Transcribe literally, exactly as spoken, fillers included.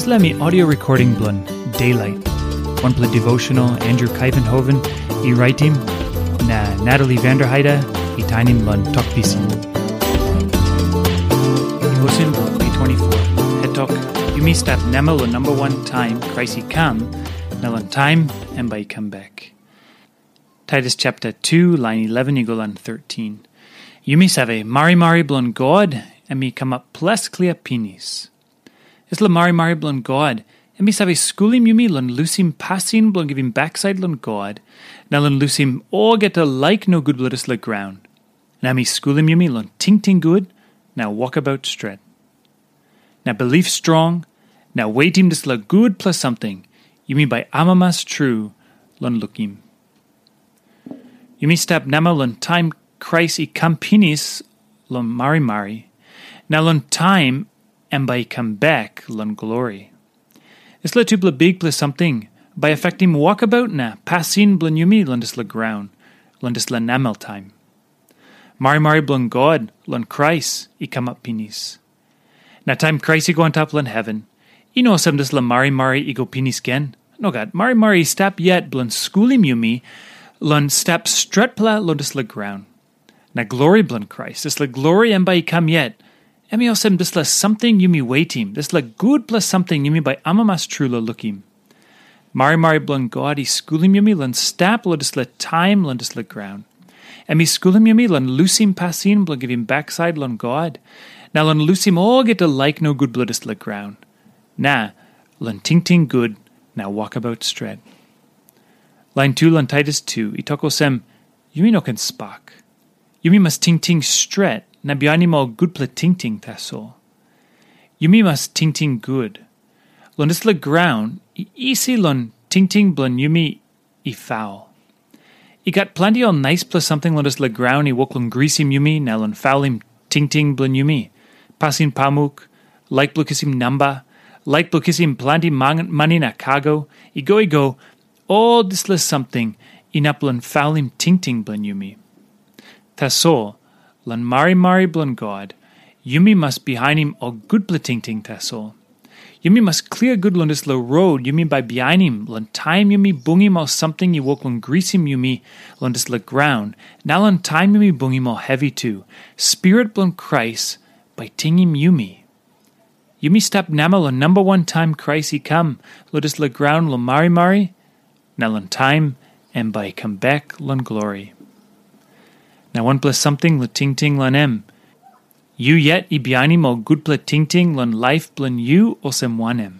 Dispela mi audio recording bilong Daylight, wanpela devotional Andrew Kaivenhoven i raitim, na Natalie Vanderheide i tainim long Tok Pisin. Devotion bilong May twenty-four. Het tok, yumi stap namel long number one time Christ i kam, na long time em bai i come back. Titus chapter two, line eleven i go long thirteen. Yumi save, marimari bilong God, em i kamap ples klia pinis. Dispela marimari bilong God, em i save skulim yumi long lusim pasin bilong givim baksait long God, na long lusim olgeta laik nogut bilong dispela graun. Na em i skulim yumi long tingting gut, na wokabaut stret. Na bilip strong, na wetim dispela gutpela samting, yumi bai amamas tru long lukim. Yumi stap namel long taim Krais i kam pinis long marimari, na long taim em bai i kam bek long glori. Dispela tupela bikpela samting bai afektim wokabaut na pasin bilong yumi long dispela graun, long dispela namel taim. Marimari bilong God long Krais i kamap pinis. Na taim Krais i go antap long heven, i no olsem dispela marimari i go pinis gen. Nogat, marimari i stap yet bilong skulim yumi long stap stretpela long dispela graun. Na glori bilong Krais, dispela glori em bai i kam yet, em i olsem dispela samting yumi wetim, dispela gutpela samting yumi bai amamas tru long lukim. Marimari bilong God i skulim yumi long stap long dispela taim long dispela graun. Em i skulim yumi long lusim pasin bilong givim baksait long God, na long lusim olgeta laik nogut bilong dispela graun, na long tingting gut na wokabaut stret. Lain tu long Titus tu i tok olsem, yumi no ken spak. Yumi mas tingting stret na bihainim ol gutpela tingting tasol. Yumi mas tingting gut. Long dispela graun, i isi long tingting bilong yumi i faul. I gat planti ol naispela samting long dispela graun i wok long grisim yumi na long faulim tingting bilong yumi. Pasin pamuk, laik bilong kisim namba, laik bilong kisim planti mani na kago, i go i go, ol dispela samting inap long faulim tingting bilong yumi. Tasol, long marimari bilong God, yumi mas bihainim ol gutpela tingting tasol. Yumi mas klia gut long dispela rot yumi bai bihainim long taim yumi bungim ol samting i wok long grisim yumi long dispela graun, na long taim yumi bungim ol hevi tu. Spirit bilong Krais bai tingim yumi. Yumi stap namel long namba wan taim Krais i kam long dispela graun long marimari, na long taim em bai i kam bek long glori. Na wanpela samting long tingting long em, yu yet i bihainim ol gutpela tingting long laip bilong yu olsem wanem?